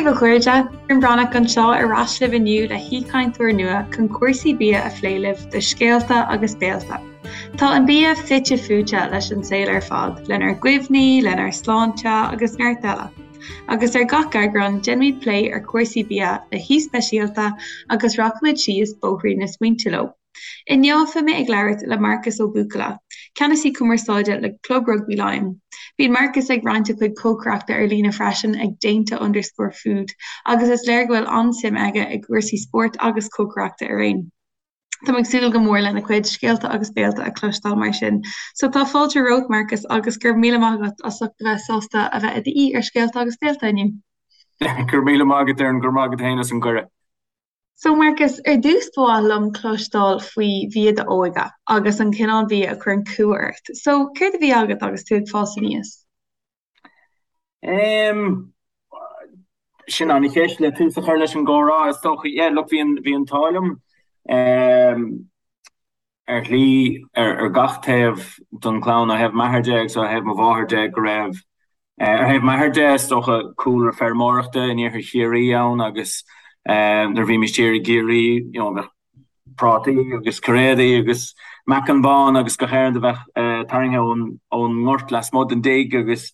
daoibh a chairde, Doireann Breathnach anseo ar ais libh inniu le haoichainteoir nua chun cúrsaí bia a phlé libh do Scéalta agus Béalta. Tá an bia fite fuaite leis an saol ar fad, lenár gcuimhní, lenár sláinte agus neart eile. Agus ar gach eagrán, déanfaimid plé ar chúrsaí bia le haoi speisialta agus rachaimid síos bóithrín na smaointe leo. Inniu beidh mé ag labhairt le Marcus Ó Buachalla, Ceannasaí Cumarsáide le Club Rugbaí Laighean. Bíonn Marcus ag roinnt a chuid cócaireachta ar líne freisin ag déanta underscore food agus is léir go bhfuil an-suim aige i gcúrsaí spóirt agus cócaireachta araon. Táim ag súil go mór lena chuid scéalta agus béalta a chloisteáil mar sin. So tá fáilte romhat Marcus agus go raibh míle maith agat as ucht a bheith sásta a bheith i d'aoi ar Scéalta agus Béalta inniu. Go raibh míle maith agat Doireann, go raibh maith agat féin as an gcuireadh. So Marcus, ar dtús ba mhaith liom cloisteáil faoi bhia d'óige agus an cineál bia a chuireann cumha ort. So, céard a bhí agat agus tú ag fás aníos? Em, sin an-cheist le tús a chur leis an gcomhrá is dócha. Yeah, look, bhí an, bhí an t-ádh liom, em, ar shlí, ar gach taobh den chlann, ó thaobh m'athar de agus ó thaobh mo mháthair de, go raibh, ar thaobh m'athar de, is dócha, cúlra feirmeoireachta in iarthar Chiarraí ann agus nuair a bhímis thiar i gCiarraí, you know, bheadh prátaí agus cairéadaí agus meacan bán agus gach aon rud a bheadh tarraingthe ón ngort lasmuigh den dtigh agus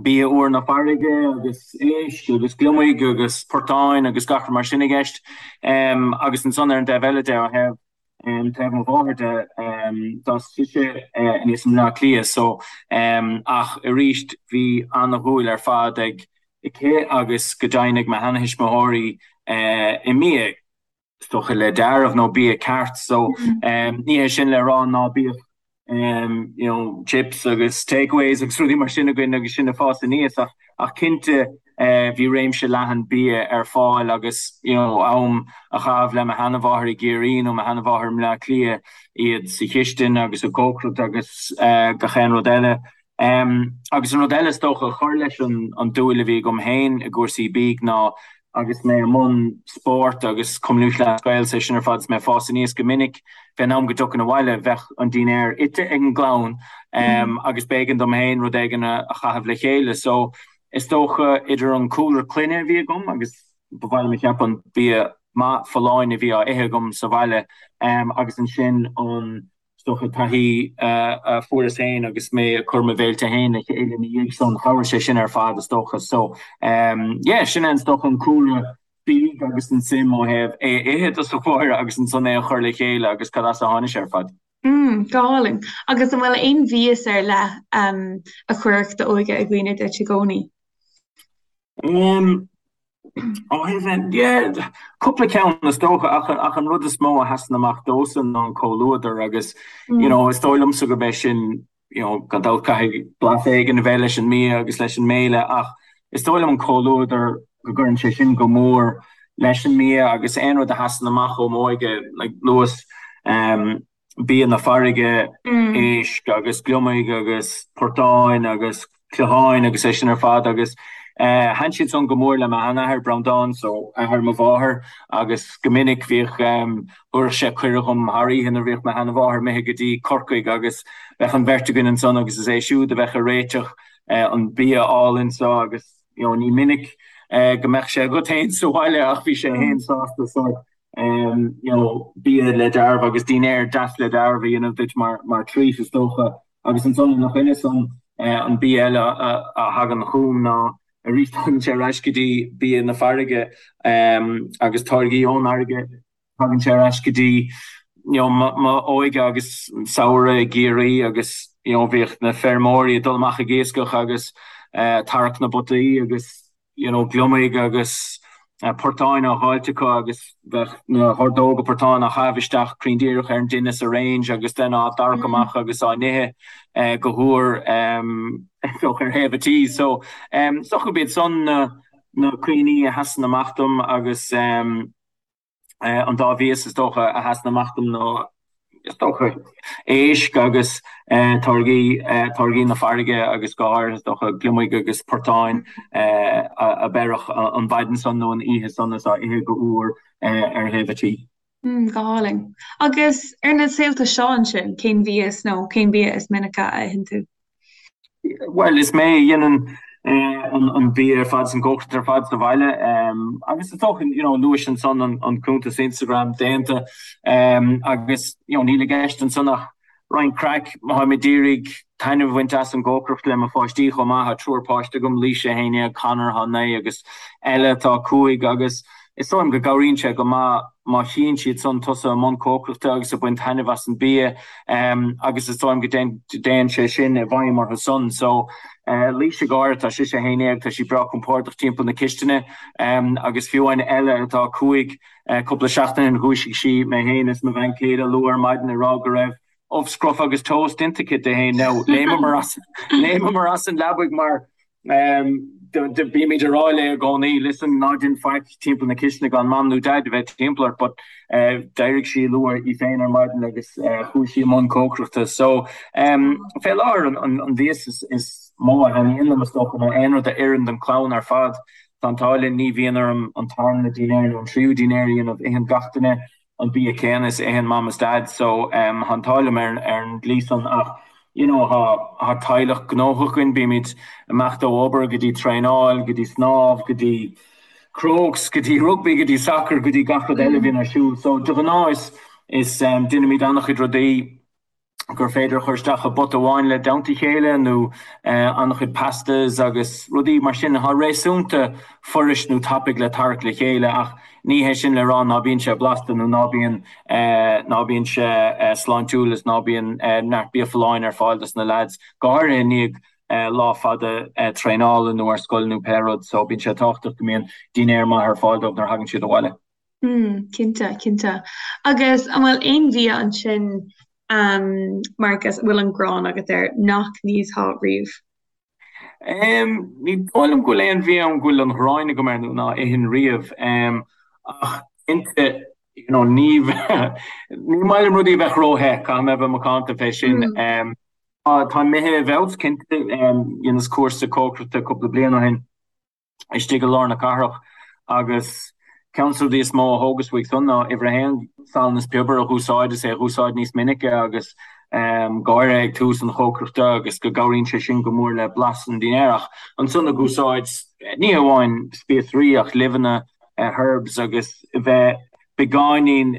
bia úr na farraige agus éisc agus gliomaigh agus portáin agus gach rud mar sin i gceist. Agus ansan ar an dtaobh eile de, ó thaobh taobh mo mháthair de, d'fhás sise aníos i mBleá Cliath so ach arís bhí ana-dhúil ar fad ag aici agus go deimhin ag mo sheanathuismitheoirí i mbia. is dócha le deáramh nó bia ceart so ní hé sin le rá ná bíodh you know chips agus takeaways agus rudaí mar sin againn agus sinn ag fás aníos ach ach cinnte bhí réimse leathan bia ar fáil agus you know am a chaitheamh le mo sheanamháthair i gCiarraí nó mo sheanamháthair i mBleá Cliath iad sa chistin agus ag cócaireacht agus gach aon rud eile. Agus an rud eile is dócha a chuir leis an dúil a bhí agam féin i gcúrsaí bídh ná agus mé i mbun spóirt agus Cumann Lúthchleas Gael is é sin ar fad is mé ag fás aníos go minic fén am go dtiocfainn abhaile bheadh an dinnéar ite ag an gclann agus b'éigean dom féin rud éigin a chaitheamh le chéile. So is dócha idir an cúlra clainne a bhí agam agus ba mhaith liom a cheapadh an bia maith folláin a bhí á ithe agam sa bhaile agus ansin an Is dócha taithí a fuaireas féin agus mé ag cur mo bhéilte féin le chéile ina dhiaidh san, chabhraigh sé sin ar fad is dócha. So yeah, sin é is dócha an cúlra bídh agus an suim ó thaobh é a ithe i dtosach báire agus ansan é a chur le chéile agus cad as a tháinig sé ar fad. Mm, go hálainn. Agus an bhfuil aon mhias ar leith a chuirfeadh d'óige i gcuimhne duit i gcónaí? Um, Ó thaobh, yeah, cúpla ceann is dócha ach ach an rud is mó a sheasann amach domhsa ná an comhluadar agus you know is dóigh liomsa gurb é sin you know gan dabht caithfidh blas éigin a bheith leis an mbia agus leis an mbéile ach is dóigh liom an comhluadar go gcuireann sé sin go mór leis an mbia agus aon rud a sheasann amach ó m'óige like luas um, bia na farraige, éisc agus gliomaigh agus portáin agus cloicheáin agus é sin ar fad agus thaitin siad san go mór le m'sheanathair Breandán, so athair mo mháthar agus go minic bhíodh, thabharfadh sé cuireadh dhom thar oíche nuair a bhíodh mo sheanamháthair imithe go dtí Corcaigh agus bheadh an bheirt againn ansan agus is é siúd a bheadh ag réiteach an bia álainn so agus you know ní minic go mbeadh sé agat féin sa bhaile ach bhí sé féin sásta sórt you know, bia le deáramh agus dinnéar deas le deáramh a dhéanamh duit mar, mar treat is dócha. Agus ansan ina choinne san, an bia eile a thagann chugam ná arís tagann sé ar ais go dtí bia na farraige agus táirgí ón fharraige, tagann sé ar ais go dtí you know, m'óige agus samhradh i gCiarraí agus you know, bhíodh na feirmeoirí ag dul amach ag iascach agus tarrac na bpotaí agus you know, gliomaigh agus portáin á dháilt acu agus bheadh na hordóga portán á chaitheamh isteach cruinn díreach ar an dtine sa range agus then á dtarrac amach agus á n-ithe go húr ar thaobh an tí. So, is dócha gurb iad san na na cuimhní a sheasann amach dom agus An dá mhias is dócha a sheasann amach dom ná, is dócha, éisc agus táirgí, táirgí na farraige agus go háirithe, is dócha, gliomaigh agus portáin a beireadh an mhaidin san nó an oíche san is á ithe go húr ar thaobh an tí. Go hálainn. Agus ar na saolta seo ansin, cén mhias nó cén bia is minice a itheann tú? Bhuel, is mé a dhéanann. an bia ar fad is an cócaireacht ar fad sa bhaile agus is dócha you know luais ansan an cuntas Instagram déanta agus you know níl i gceist ansan ach roinnt craic, táim ag iarraidh taitneamh a bhaint as an gcócaireacht le mo pháistí chomh maith, tá triúr páiste agam, Laoise 11, Conor atá 9 agus Ella atá 5 agus is dóigh liom go gcabhraíonn sé go maith má chíonn siad san tusa i mbun cócaireachta agus ag baint taitneamh as an bia agus is dóigh liom go dtéann sé sin i bhfeidhm orthu san. So Laoise go háirithe, tá sise 11, tá sí breá compordach timpeall na cistine agus fiú amháin Ella atá 5, cúpla seachtain ó shin dhúisigh sí mé féin is mo bhean chéile luath ar maidin ag rá go raibh ubh scrofa agus toast déanta aici di féin. Now léimeamar as léimeamar as an leabaidh mar bímid ag rá léi i gcónaí listen ná déan faic timpeall na cistine gan mam nó dad a bheith timpeall ort but d'éirigh sí luath í féin ar maidin agus chuaigh sí i mbun cócaireachta. So fé láthair an mhias is mó a thaitníonn liom is dócha ná aon rud a oireann don chlann ar fad. Tá an t-ádh linn ní bhíonn orm an tarna dinnéar nó an tríú dinnéar a dhéanamh, itheann gach duine an bia céanna is a itheann mam is dad so tá an t-ádh liom ar an dlí san ach you know tá teaghlach gnóthach againn, bímid imeacht ó obair go dtí traenáil, go dtí snámh, go dtí Crokes, go dtí rugbaí, go dtí sacar, go dtí gach rud eile a bhíonn ar siúl so de ghnáth is is déanaimid an-chuid rudaí. gur féidir a chur isteach i bpota amháin le dteannta a chéile nó an-chuid pastas agus rudaí mar sin atá réasúnta fuirist nó tapaidh le tarrac le chéile ach ní hé sin le rá ná bíonn sé blasta nó ná bíonn ná bíonn sé sláintiúil is ná bíonn neart bia folláin ar fáil dos na leaids, go háirithe i ndiaidh lá fada traenála nó ar scoil nó pé rud so bíonn sé tábhachtach go mbíonn dinnéar maith ar fáil dóibh nuair a thagann siad abhaile. Mm, cinnte, cinnte. Agus an bhfuil aon bhia ansin, um, Marcus, a bhfuil an ghráin agat air nach n-íosfá riamh? Um, ní dóigh liom go bhfuil aon bhia ann go bhfuil an ghráin agam air nó ná ithfinn riamh. Um, ach cinnte, you know, ní, ní maith liom rudaí a bheith ró-the, caithfidh mé a bheith macánta fé sin. Mm. Um, tá imithe i bhfeabhas, cinnte, um, dheineas cúrsa cócaireachta cúpla bliain ó shin. istigh i lár na cathrach agus ceann de na rudaí is mó a thógas uaidh san ná uimhir a haon, salann is piobar a dh'úsáid is é a dh'úsáid níos minice agus go háirithe ag tús an chócaireachta agus go gcabhraíonn sé sin go mór le blas an dinnéir ach ansan ag úsáid ní hamháin spíosraí ach luibheanna, herbs agus bheith beagáinín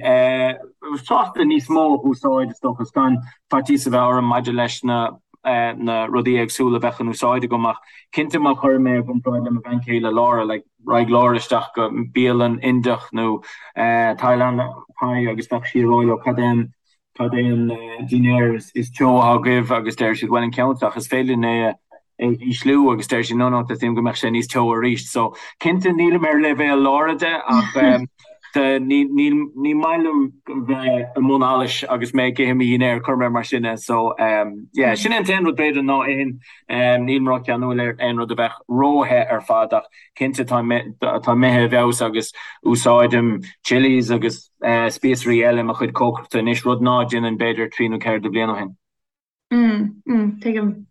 sásta níos mó a dh'úsáid, is dócha, is gan faitíos a bheith orm maidir leis na na rudaí éagsúla a bheadh in úsáid agam ach cinnte má chuireann mé i gcomparáid le mo bhean chéile Laura, like raghaidh Laura isteach go bialann Indiach nó Thailandach Thai agus bheadh sí ag rá leo cad é an cad é an dinnéar is teo atá agaibh agus deir siad bhuel an ceann seo ach is féidir linn é a ísliú agus deir siad no no teastaíonn go mbeadh sé níos teo arís. So cinnte nílim ar leibhéal Laura de ach ní ní ní maith liom bheith i mbun allais agus mé ag ithe mo dhinnéir cuir mé mar sin é. So yeah sin é an t-aon rud b'fhéidir ná ithfinn nílim ró-cheanúil ar aon rud a bheadh ró-the ar fad ach cinnte tá tá imithe i bhfeabhas agus úsáidim chilies agus spíosraí eile i mo chuid cócaireachta anois, rud ná déanainn b'fhéidir trí nó ceithre de bhliain ó shin. Mm, mm, tuigim.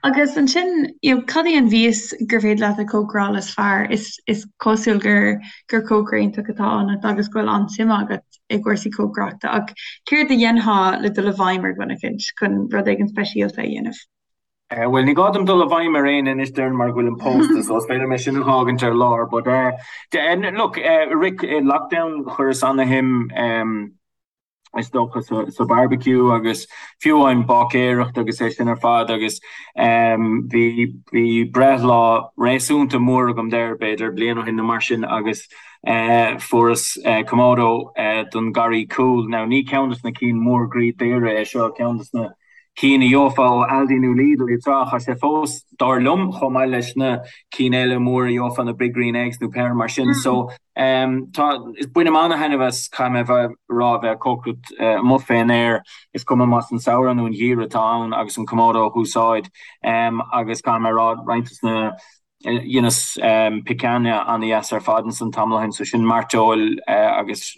Agus ansin, you know, cad í an mhias gur féidir leat a chócaráil is fearr? Is, is cosúil gur, gur cócaire iontach atá ionat agus go bhfuil an-suim agat i gcúrsaí cócaireachta ach céard a dhéanfá le dul i bhfeidhm ar dhuine eicínt chun rud éigin speisialta a dhéanamh? Bhuel, ní gá dom dul i bhfeidhm ar éinne anois déarfainn mar go bhfuilim pósta, so is féidir liom é sin a dh'fhágaint ar lár. But look, i rith lockdown chuireas ana-shuim is dócha sa barbecue agus fiú amháin báicéireacht agus é sin ar fad agus bhí bhí breithlá réasúnta mór agam there b'fhéidir bliain ó shin nó mar sin agus fuaireas Kamado don garraí cúil. Now ní ceann de na cinn mór groí daora é seo, ceann de na cinn a gheofá ó Aldi nó Lidl iad seo, ach tá sé fós, dar liom, chomh maith leis na cinn eile móra a gheofá, na Big Green Eggs nó pé ar mar sin. So, tá, bainim ana-thaitneamh as, caithfidh mé a bheith, rá, bheith ag cócaireacht amuigh fén aer, is cuma más an samhradh nó an geimhreadh atá ann, agus an Kamado a dh'úsáid. Agus caithfidh mé a rá, roinnt de na Dheineas picanha ana-dheas ar fad ansan tamall ó shin, so sin mairteoil agus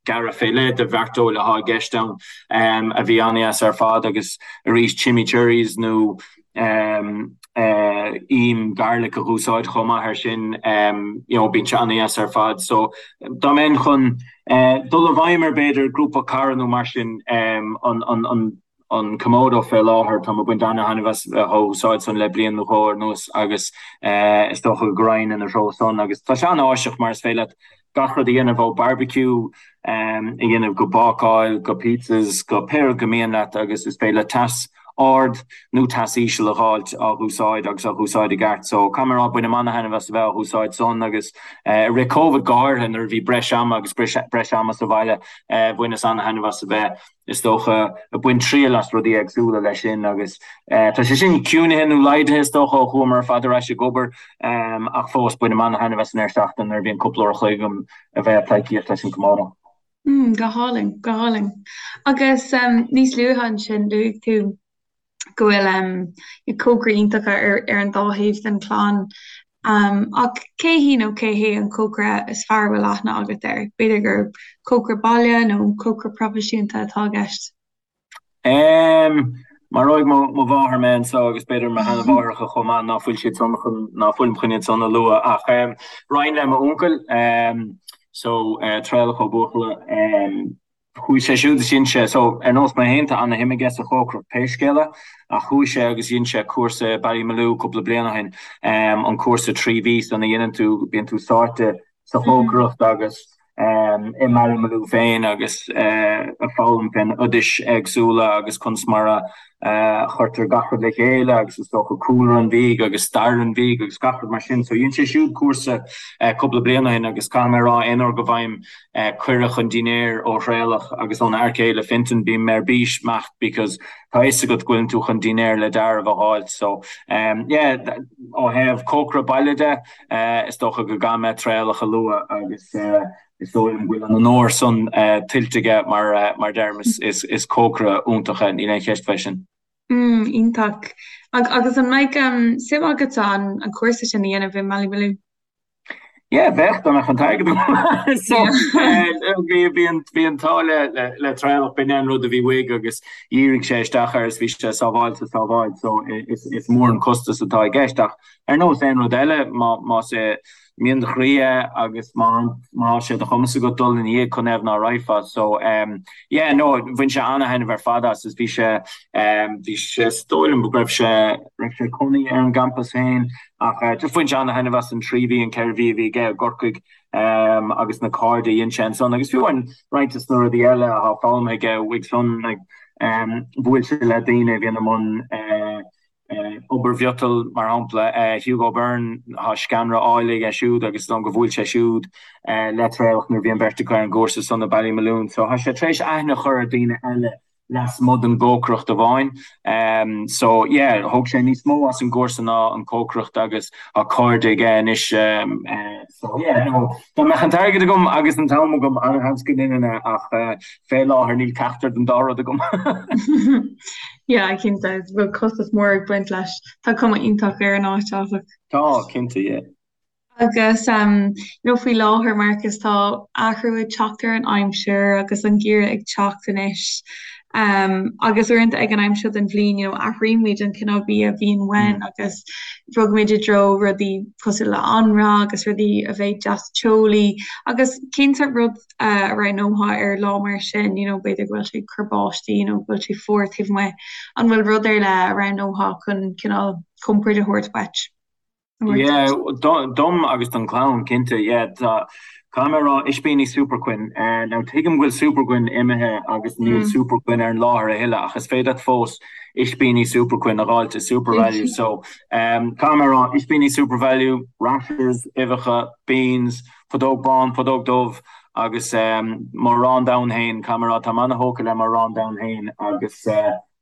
gearradh fé leith de mhairteoil atá i gceist ann a bhí ana-dheas ar fad agus arís chimichurris nó im garlic a dh'úsáid chomh maith ar sin, you know bíonn sé ana-dheas ar fad. So dá mbeinn chun dul i bhfeidhm ar b'fhéidir grúpa cara nó mar sin an an an. an Kamado fé láthair, táim ag baint ana-thaitneamh as a bheith á úsáid san le bliain nó dhó anuas agus is dócha go raghainn ina threo san agus tá sé an-áiseach mar is féidir leat gach rud a dhéanamh ó barbecue a dhéanamh go bácáil go pizzas go pé rud go mian leat agus is féidir leat teas ard nó teas íseal a dh'fháilt á dh'úsáid agus á dh'úsáid i gceart. So caithfidh mé a rá bainim ana-thaitneamh as a bheith á dh'úsáid san agus i rith Covid go háirithe nuair a bhí breis ama agus breis ama sa bhaile bhaineas ana-thaitneamh as a bheith is dócha, ag baint triail as rudaí éagsúla leis sin agus tá sé sin ciúnaithe nó laghdaithe is dócha ó chuamar ar fad ar ais ag obair ach fós bainim ana-thaitneamh as an deireadh seachtaine nuair a bhíonn cúpla uair a chloig agam a bheith ag pleidhcíocht leis an Kamado. Mm, go hálainn, go hálainn. Agus níos luaithe ansin luaigh tú go bhfuil cócairí iontacha ar ar an dá thaobh den chlann. Ach cé hí nó cé hé an cócaire is fearr a bhfuil aithne agat air? B'fhéidir gur cócaire baile nó cócaire proifisiúnta atá i gceist. Maróidh mo mháthair mé anseo agus b'fhéidir mo sheanmháithreacha chomh maith ná fuil siad san chun, ná fuilim chun iad san a lua ach raghainn le m'uncail so Traolach Ó Buachalla. Chuaigh sé siúd is dhein sé, so ar nós mé féin tá ana-shuim aige sa chócaireacht pé scéal é, ach chuaigh sé agus dhein sé cúrsa i Ballymaloe cúpla bliain ó shin, an cúrsa 3 mhí san a dhéanann tú, bíonn tú sáite sa chócaireacht agus i mBallymaloe féin agus ag foghlaim fén oidis éagsúla agus conas mar a chuirtear gach rud le chéile agus is dócha cúlra an bhídh agus stair an bhídh agus gach rud mar sin. So dhein sé siúd cúrsa cúpla bliain ó shin agus caithfidh mé a rá aon uair go bhfaighim cuireadh chun dinnéir ó Thraolach agus óna fhear céile Fintan bím ar bís imeacht because tá fhios agat go bhfuileann tú chun dinnéar le deáramh a dh'fháilt. So yeah ó thaobh cócaire baile de is dócha go gcaithfidh mé Traolach a lua agus Is dóigh liom go bhfuil an onóir san tuillte aige mar deirim is cócaire iontach é, níl aon cheist fé sin. Mm, iontach. Agus an mbeadh suim agatsa an cúrsa sin a dhéanamh i mBallymaloe? Yeah, bheadh, dá mbeadh an t-airgead agam. So, bhí bhí an bhí an t-ádh le le le Traolach, b'in é an rud a bhí uaidh agus dhírigh sé isteach air is bhí sé sábháilte sábháilt so is is mór an costas atá i gceist ach ar nós aon rud eile má más é mian do chroí é agus má tá sé de chumas agat dul ina dhiaidh cá fhios ná raghfá. So ehm yeah no bhain sé ana-thaitneamh ar fad as is bhí sé ehm bhí sé is dóigh liom go raibh sé raibh sé ag cónaí ar an gcampas féin ach eh just bhain sé ana-thaitneamh as an 3 mhí an 4 mhí a bhí aige i gCorcaigh ehm agus na cairde a dhein sé ansan agus fiú amháin roinnt des na rudaí eile atá foghlamtha aige uaidh san like ehm bhuail sé le daoine a bhíonn i mbun eh Obair mhiotail, mar shampla, Hugo Byrne, tá sceanra áille aige siúd agus is dóigh liom gur bhuail sé siúd le Traolach nuair a bhí an bheirt acu ar an gcúrsa san i Ballymaloe. So tá sé tar éis aithne a chur ar daoine eile lasmuigh den gcócaireacht amháin. So yeah, thóg sé níos mó as an gcúrsa ná an cócaireacht agus tá cairde aige anois. So yeah, no, dá mbeadh an t-airgead agam agus an t-am agam, an-sheans go ndéanfainn é ach fé láthair níl ceachtar den dá rud agam. Yeah, cinnte, bhfuil costas mór ag baint leis. Tá cuma iontach ar an áit, áfach. Tá, cinnte, yeah. Agus um, you know, faoi láthair, Marcus, tá athrú ag teacht ar an aimsir agus an geimhreadh ag teacht anois. Um, agus uaireanta ag an am seo den bhliain, you know, athraímid an cineál bia a bhíonn uainn mm. agus bogaimid i dtreo rudaí cosúil le anraith agus rudaí a bheidh deas teolaí agus cén sórt rud a roghnófá ar lá mar sin, you know, b'fhéidir go bhfuil sé ag cur báistí nó go bhfuil sé fuar taobh amuigh, an bhfuil rud ar leith a roghnófá chun cineál compord a thabhairt duit? Yeah, dom agus don chlann, cinnte, yeah. Tá, caithfidh mé a rá, ispíní Superquinn. Now tuigim go bhfuil Superquinn imithe agus níl Superquinn ar an láthair a thuilleadh ach is féidir leat fós ispíní Superquinn a dh'fháilt i SuperValu. So, caithfidh mé a rá, ispíní SuperValu, rashers, uibheacha, beans, Putóg bán, putóg dubh agus mo arán donn féin, caithfidh mé a rá, táim ana-thógtha le mo arán donn féin agus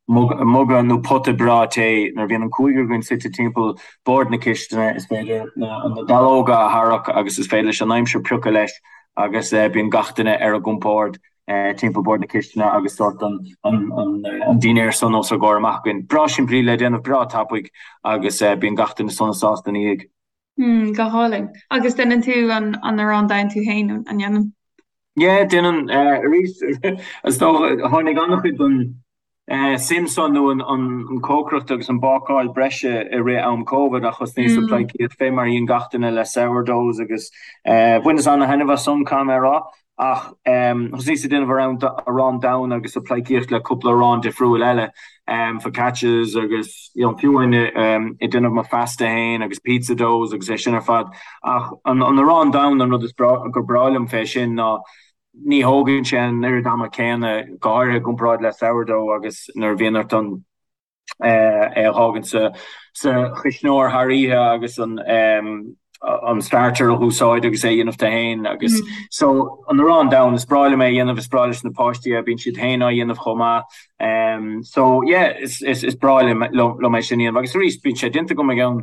muga nó pota breá tae. Nuair a bhíonn an cúigear againn suite timpeall bord na cistine, is féidir na dallóga a tharrac agus is féidir leis an aimsir piocadh leis agus bíonn gach duine ar a gcompord timpeall bord na cistine agus sórt an dinnéar san os ár gcomhair amach againn. Breá simplí le déanamh, breá tapaidh agus bíonn gach duine sona sásta ina dhiaidh. Mm, go hálainn. Agus déanann tú an an arán donn tú féin, an ndéanann? Yeah, déanann. Arís, is dócha, tháinig an-chuid den suim san nó an cócaireacht agus an bácáil breise i rith am Covid ach thosnaíos ag pleidhcíocht fé mar a dhein gach duine le sourdoughs agus bhaineas an-thaitneamh as san, caithfidh mé a rá. Ach thosnaíos ag déanamh arán donn agus ag pleidhcíocht le cúpla arán difriúil eile, focaccias agus you know fiú amháin ag déanamh mo phasta féin agus pizza doughs agus é sin ar fad. Ach an arán donn an rud is gur breá liom fé sin ná ní thógann sé an oiread ama céanna, go háirithe i gcomparáid le sourdough agus nuair a bhíonn ort an é a fhágaint sa chuisneoir thar oíche agus an starter a úsáid agus é a dhéanamh tú féin agus so an arán donn is breá liom é a dhéanamh is breá leis na páistí é bíonn siad féin á dhéanamh chomh maith so yeah is is breá liom liom é sin a dhéanamh agus arís bíonn sé déanta agam i gceann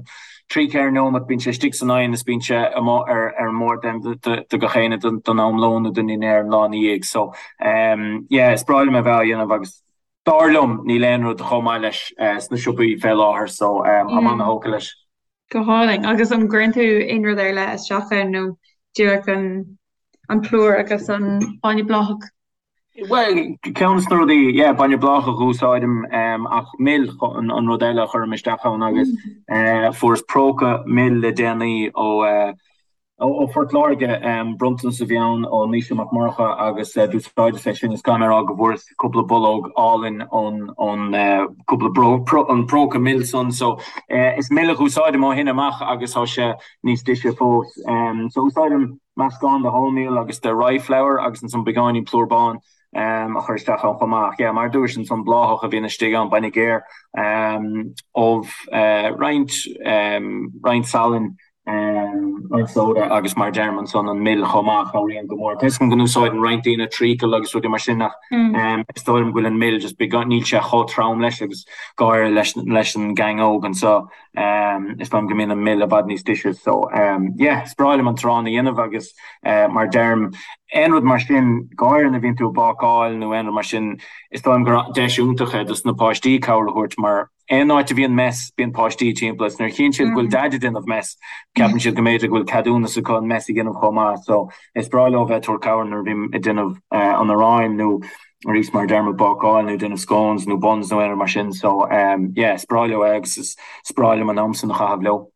3 4 nóiméad bíonn sé istigh san oigheann is bíonn sé amuigh ar ar an mbord do gach éinne don am lóin nó don dinnéar an lá ina dhiaidh so yeah is breá liom é a bheith á dhéanamh agus Dar liom, níl aon rud chomh maith leis sna siopaí fé láthair so táim ana-thógtha leis. Go hálainn. Agus an gcuireann tú aon rud ar leith isteach ann nó díreach an plúr agus an bainne bláthach? Bhuel, ceann de na rudaí, yeah, bainne bláthach a úsáidim ach mil an rud eile a chuirim isteach ann agus fuaireas próca mil le déanaí ó Ó Phort Láirge, bronntanas a bhí ann ó Naoise Mac Murcha agus d'úsáideas é sin is caithfidh mé a rá go bhfuaireas cúpla bollóg álainn ón ón cúpla an próca mil san so is mil a úsáidim ó shin amach agus tá sé níos deise fós. So úsáidim meascán de wholemeal agus de rye flour agus ansan beagáinín plúr bán a chur isteach ann chomh maith. Yeah, mar a dúirt ansan bláthach a bhíonn istigh ann, bainne géar, ubh, roinnt roinnt salainn, roinnt soda agus mar a deirim ansan an mil chomh maith, cabhraíonn go mór. Tá 'fhios agam go n-úsáideann roinnt daoine treacle agus rudaí mar sin ach is dóigh liom go bhfuil an mil just beagán, níl sé chomh trom leis agus go háirithe leis leis an gang óg anseo is dóigh liom go mbíonn an mil i bhfad níos deise so yeah is breá liom an t-arán a dhéanamh agus mar a deirim aon rud mar sin, go háirithe nuair a bhíonn tú ag bácáil nó aon rud mar sin, is dóigh liom gur deis iontach é dos na páistí cabhair a thabhairt mar Aon áit a bhíonn mess, bíonn páistí timpeall is nuair a chíonn siad go bhfuil Daid ag déanamh mess, ceapann siad go mb'fhéidir go bhfuil ceadúnas acu an mess a dhéanamh chomh maith. So, is breá leo bheith ag tabhairt cabhair nuair a bhím ag déanamh an aráin nó arís mar a deirim ag bácáil nó ag déanamh scones nó buns nó aon rud mar sin. So, yeah, is breá leo é agus is breá liom an am san a chaitheamh leo.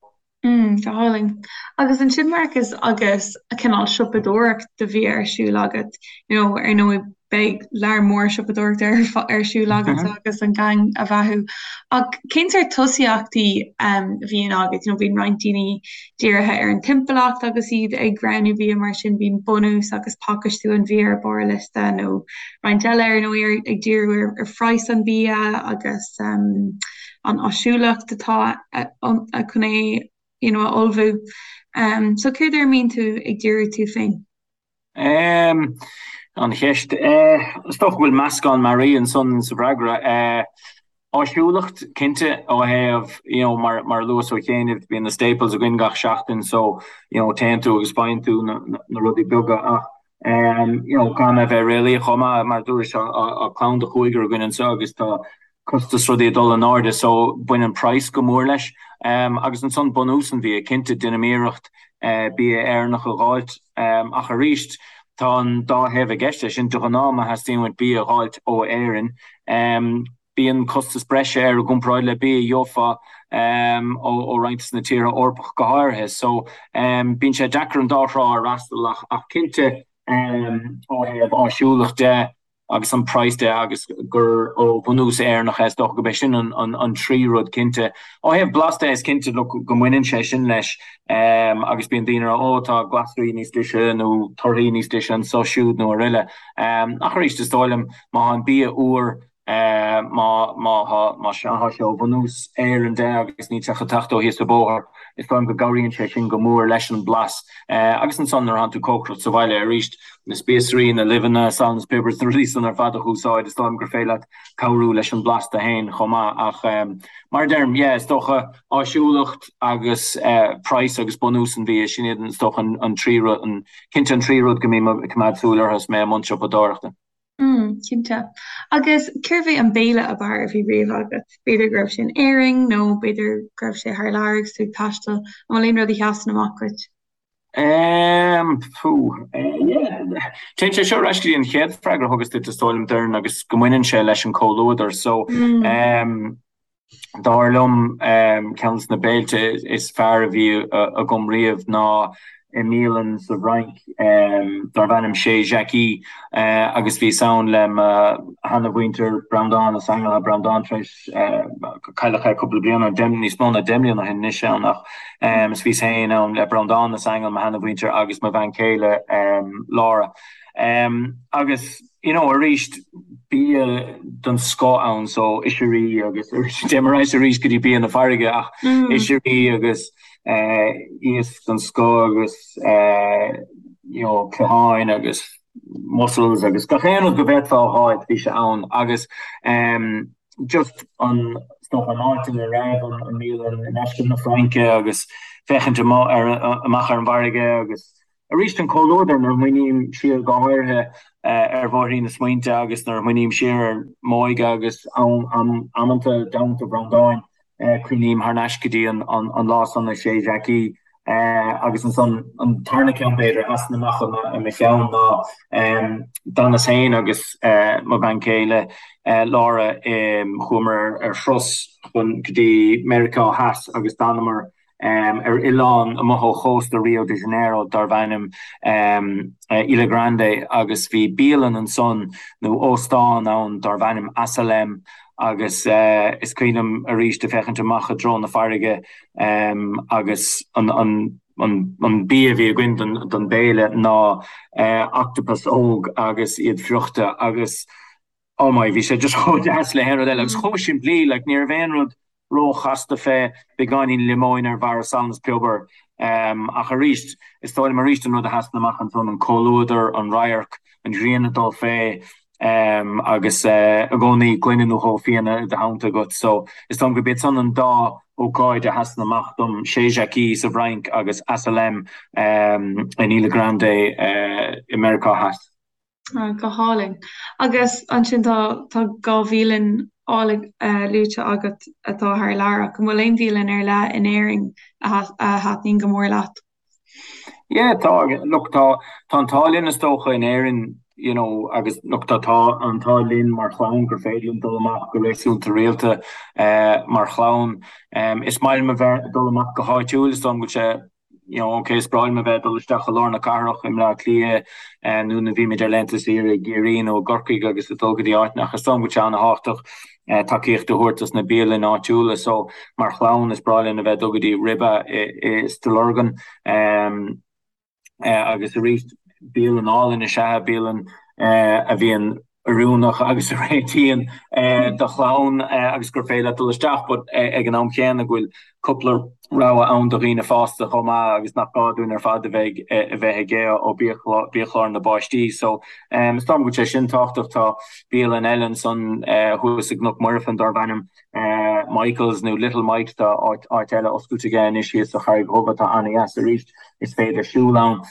Mm, go hálainn. Agus ansin Marcus agus cineál siopadóireacht do bhia ar siúl agat, you know, ar ndóigh beidh lear mór siopadóireachta ar ar siúl agat agus an gang a bheathú. Ach cén sórt tosaíochtaí um, a bhíonn agat? You know, bíonn roinnt daoine dírithe ar an timpeallacht agus iad ag roghnú bia mar sin bíonn bunús agus pacáistiú an bhia ar barr a liosta nó roinnt eile ar ndóigh ag díriú ar, ar phraghas an bia agus um, an áisiúlacht atá chun é you know, a ullmhú. Um, so céard ar a mbíonn tú ag díriú tú féin? Um, an cheist. Uh, is dócha go bhfuil meascán mearaí ansan sa bhfreagra. Uh, áisiúlacht, cinnte, ó thaobh, you know, mar, mar a luas ó chianaibh, bíonn na staples againn gach seachtain, so, you know, téann tú agus faigheann tú na, na, na rudaí beaga ach um, you know, caithfidh mé a bheith réalaíoch chomh maith, mar a dúras, tá clann de chúigear againn anseo agus tá costas rudaí ag dul in airde so baineann praghas go mór leis. Agus ansan bunús an bhia, cinnte déanaim iarracht bia Éireannach a dh'fháilt ach arís tá an dá thaobh i gceist leis sin, de ghnáth má theastaíonn uait bia a dh'fháilt ó Éirinn bíonn costas breise air i gcomparáid le bia a gheofá ó roinnt de na tíortha Eorpacha go háirithe. So bíonn sé deacair an dá thrá a fhreastal ach cinnte ó thaobh áisiúlacht de, agus an praghas de agus gur ó bhunús Éireannach é, is dócha gurb é sin an trí rud cinnte. Ó thaobh blas de, is cinnte look go mbaineann sé sin leis agus bíonn daoine ag rá ó tá glasraí níos deise nó torthaí níos deise anseo siúd nó araile. Ach arís is dóigh liom má tá an bia úr, má má tá má tá sé ó bhunús Éireann de agus níl sé chun teacht ó thíos an bóthar, is dóigh liom go gcabhraíonn sé sin go mór leis an blas. Agus ansan nuair atánn tú ag cócaireacht sa bhaile arís, na spíosraí, na luibheanna, salann is piobar, na rudaí san ar fad a úsáid, is dóigh liom gur féidir leat cabhrú leis an blas tú féin chomh maith. Ach mar a deirim, yeah, is dócha áisiúlacht agus praghas agus bunús an bhia, sin iad is dócha an trí rud, cinnte an trí rud go mbím ag coimeád súil orthu is mé i mbun siopadóireachta. Mm, cinnte. Agus cérbh é an béile ab fhearr a bhí riamh agat? B'fhéidir go raibh sé in Éirinn nó b'fhéidir go raibh sé thar lear agus tú ag taisteal. An bhfuil aon rud a sheasann amach duit? Ehm, fú, yeah. Téann sé seo ar ais go dtí an chéad freagra a thugas duit, is dóigh liom, Doireann, agus go mbaineann sé leis an comhluadar. So, ehm, dar liom, ehm, ceann de na béilte is fearr a bhí agam riamh ná. i mbialann sa bhFrainc darb ainm Chez Jackie agus bhíos ann le mo sheana-mhuintir, Breandán is Aingeal. Tá Breandán tar éis, cailleadh é cúpla bliain ó shin, níos mó ná 10 mbliana ó shin anois ann ach is bhíos féin ann le Breandán is Aingeal, mo sheana-mhuintir agus mo bhean chéile Laura. Agus you know arís bia den scoth ann so oisrí agus téim ar ais arís go dtí bia na farraige ach oisrí agus iasc den scoth agus you know cliatháin agus mussels agus gach aon rud go bhféadfá a fháil bhí sé ann agus just an is dócha an áit ina raibh an mbialann i ndeisceart na Fraince agus féachaint amach ar amach ar an bhfarraige agus arís an comhluadar nuair a smaoiním siar go háirithe ar bhóithrín na smaointe agus nuair a smaoiním siar ar m'óige agus am amanta i dteannta Bhreandáin. Cuimhním thar n-ais go dtí an lá san i Chez Jackie agus ansan an tarna ceann b'fhéidir a sheasann amach i mo cheann ná d'fhanas féin agus mo bhean chéile Laura chuamar ar thuras chun go dtí Meiriceá Theas agus d'fhanamar ar oileán amuigh ó chósta Rio de Janeiro darb ainm Ilha Grande agus bhí bialann ansan nó óstán ann darb ainm Asalem agus is cuimhin liom arís ag féachaint amach i dtreo na farraige agus an bia a bhí againn don béile ná octopus óg agus iad friochta agus Oh my, bhí sé just chomh deas le haon rud eile agus chomh simplí, like ní raibh aon rud róchasta fé, beagáinín liomóin ar bharra salann is piobar. Ach arís, is dóigh liom arís an rud a sheasann amach ansan, an comhluadar, an radharc, an ghrian ag dul fé agus i gcónaí gloine nó dhó fíona i do theannta agat. So is dóigh liom gurb iad san an dá ócáid a sheasann amach dom, Chez Jackie sa bhFrainc agus Asalem in Ilha Grande i Meiriceá Theas. Go hálainn. Agus ansin tá tá 2 bhialann álainn luaite agat atá thar lear ach an bhfuil aon bhialann ar leith in Éirinn a thaitníonn go mór leat? Yeah, tá, look, tá, tá an t-ádh linn is dócha in Éirinn, you know, agus look, tá, tá an t-ádh linn mar chlann gur féidir linn dul amach go réasúnta rialta mar chlann. Is maith liom a bheith ag dul amach go háitiúil, is dóigh liom go bhfuil sé you know, ok, is breá liom a bheith ag dul isteach i lár na cathrach i mBleá Cliath nó nuair a bhímid ar laethanta saoire i gCiarraí nó i gCorcaigh agus ag dul go dtí áiteanna ach is dóigh liom go bhfuil sé an-thábhachtach tacaíocht a thabhairt dos na bialanna áitiúla. So mar chlann is breá linn a bheith ag dul go dtí Ribe i Stigh Lorgan. Agus arís, bialann álainn is ea é, bialann a bhíonn oiriúnach agus a réitíonn do chlann agus gur féidir leat dul isteach but ag an am chéanna go bhfuil cúpla rogha ann do dhaoine fásta chomh maith agus nach gá dúinn ar fad a bheith a bheith ag ithe ó biachlár na bpáistí. So is dóigh liom go bhfuil sé sin tábhachtach. Tá bialann eile ansan thuas i gCnoc Muirfean darb ainm Michael's nó Little Mike's, tá áit eile oscailte aige anois thíos sa Charraig Dhubh atá an-dheas arís, is féidir siúl ann.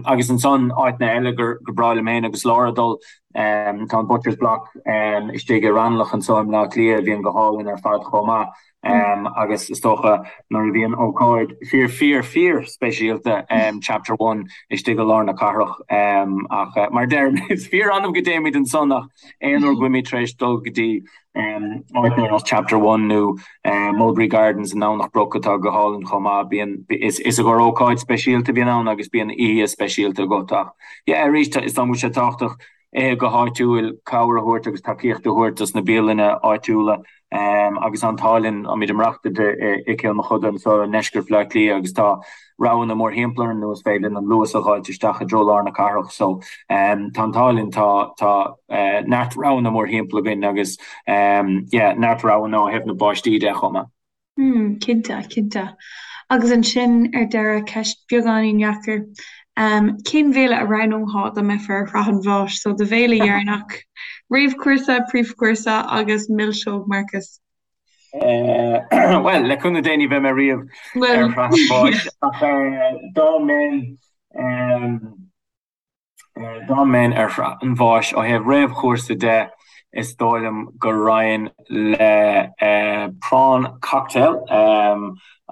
Agus ansan áiteanna eile gur breá liom féin agus Laura dul, tá an Butcher's Block istigh i Raghnallach anseo i mBleá Cliath a bhíonn go hálainn ar fad chomh maith. Agus is dócha nuair a bhíonn ócáid fíor fíor fíor speisialta Chapter One istigh i lár na cathrach ach mar a deirim is fíor annamh go dtéimid ansan ach aon uair go bhfuilimid tar éis dul go dtí áit ar nós Chapter One nó Mulberry Gardens i nDomhnach Broc atá go hálainn chomh maith. Bíonn, is i gcomhair ócáid speisialta a bhíonn ann agus bíonn oíche speisialta agat ach yeah arís is dóigh liom go bhfuil sé tábhachtach ithe go háitiúil, cabhair a thabhairt agus tacaíocht a thabhairt dos na bialanna áitiúla. Agus an t-ádh linn, táimid ag maireachtáil i gCill Mochuda anseo i ndeisceart Bhaile Átha Cliath agus tá roghanna mórthimpeall orainn nó is féidir linn an Luas a dh'fháilt isteach i dtreo lár na cathrach. So tá an t-ádh linn, tá tá neart roghanna mórthimpeall againn agus yeah neart roghanna ó thaobh na bpáistí de chomh maith. Mm, cinnte, cinnte. Agus ansin ar deireadh, ceist beagáinín dheacair. Cén bhéile a roghnófá dá mbeifeá ar shraith an bháis? So do bhéile dheireanach, réamhchúrsa, príomhchúrsa agus milseog, Marcus. Bhuel, le cúnamh Dé ní bheidh mé riamh ar shraith an bháis ach dá mbeinn dá mbeinn ar shraith an bháis ó thaobh réamhchúrsa de, is dóigh liom go raghainn le prawn cocktail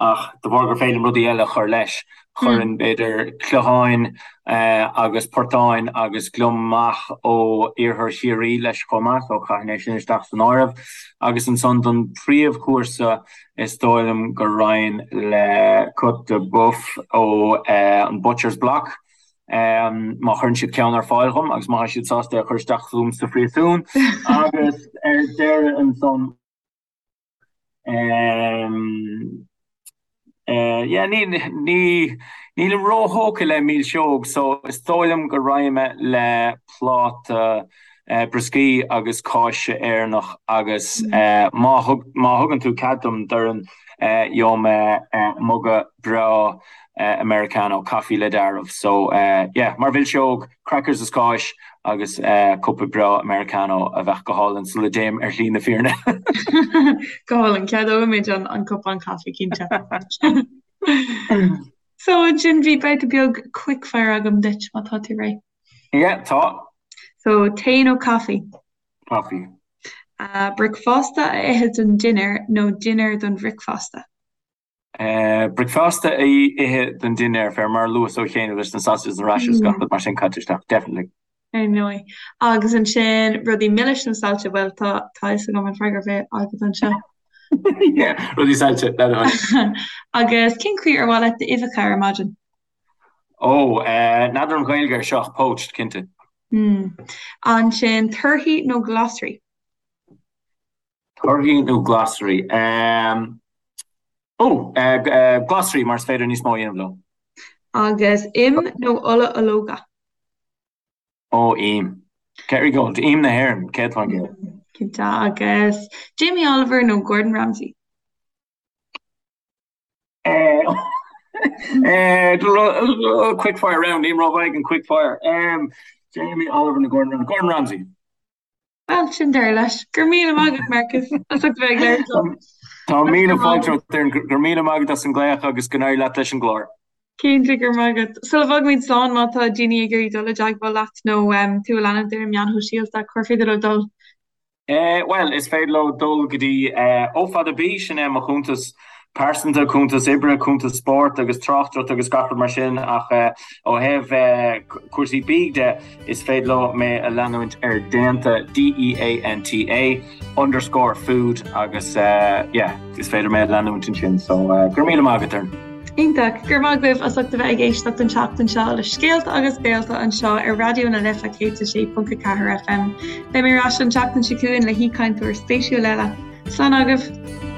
ach de bharr gur féidir liom rudaí eile a chur leis. Chuirfinn, b'fhéidir, cloicheáin agus portáin agus gliomach ó iarthar Chiarraí leis chomh maith, so chaithfinn é sin isteach san áireamh. Agus ansan don phríomhchúrsa, is dóigh liom go raghainn le côte de bœuf ó an Butcher's Block, má chuireann siad ceann ar fáil dhom agus má tá siad sásta é a chur isteach chugam sa phríosún. Agus ar deireadh ansan. Yeah, ní, ní, nílim róthógtha le milseog so is dóigh liom go raghaidh mé le pláta brioscaí agus cáise Éireannach agus má thug, má thugann tú cead dom, Doireann, gheobhaidh mé muga breá Americano, caife le deáramh. So, yeah, mar mhilseog, crackers is cáis agus cupa breá Americano a bheadh go hálainn sula dtéim ar shlí na fírinne. Go hálainn, ceadóimid an cupán caife, cinnte. So, ansin bhí babhta beag quickfire agam duit, má tá tú réidh. Yeah, tá. So, tae nó caife? Caife. Bricfeasta a ithe don dinnéar nó dinnéar don bhricfeasta? Bricfeasta a ithe don dinnéar, fé mar a luas ó chéanna leis na sausages na rashers gach rud mar sin caite isteach, definitely. Ar ndóigh. Agus ansin rudaí milis nó saillte, bhuel tá tá fhios agam an freagra a bheidh agat anseo. Yeah, rudaí saillte, le do thoil. Agus cén chaoi ar mhaith leat d'uibheacha ar maidin? Ó, n'fheadar an Ghaeilge ar seo ach poached, cinnte. Mm. Ansin torthaí nó glasraí? Torthaí nó glasraí? Ó, glasraí mar is féidir níos mó a dhéanamh leo. Agus im nó ola ológa? Ó, im. Kerrygold, im na hÉireann, 100%. Cinnte. Agus Jamie Oliver nó Gordon Ramsay? Quickfire round, nílim rómhaith ag an quickfire. Jamie Oliver nó Gordon Ramsay? Gordon Ramsay. Bhuel, sin deireadh leis. Go raibh míle maith agat, Marcus, as ucht a bheith ag labhairt liom. Tá míle fáilte romhat, Doireann. Go raibh míle maith agat as an nglaoch agus go n-éirí leat leis an gclár. Cinnte, go raibh maith agat. Sula bhfágaimid slán, má tá daoine ag iarraidh dul i dteagmháil leat nó tú a leanúint ar na meáin shóisialta, cár féidir leo dul? Bhuel, is féidir leo dul go dtí O Fada B, sin é mo chuntas pearsanta, cuntas oibre, cuntas spóirt agus tráchtaireacht agus gach rud mar sin ach ó thaobh cúrsaí bídh de, is féidir leo mé a leanúint ar Déanta, D-E-A-N-T-A, underscore food agus yeah, is féidir mé a leanúint ansin so go raibh míle maith agat, Doireann. Iontach. Go raibh maith agaibh as ucht a bheith ag éisteacht an tseachtain seo le Scéalta agus Béalta anseo ar Raidió na Life 106.4 FM. Beidh mé ar ais an tseachtain seo chugainn le haoichainteoir spéisiúil eile. Slán agaibh!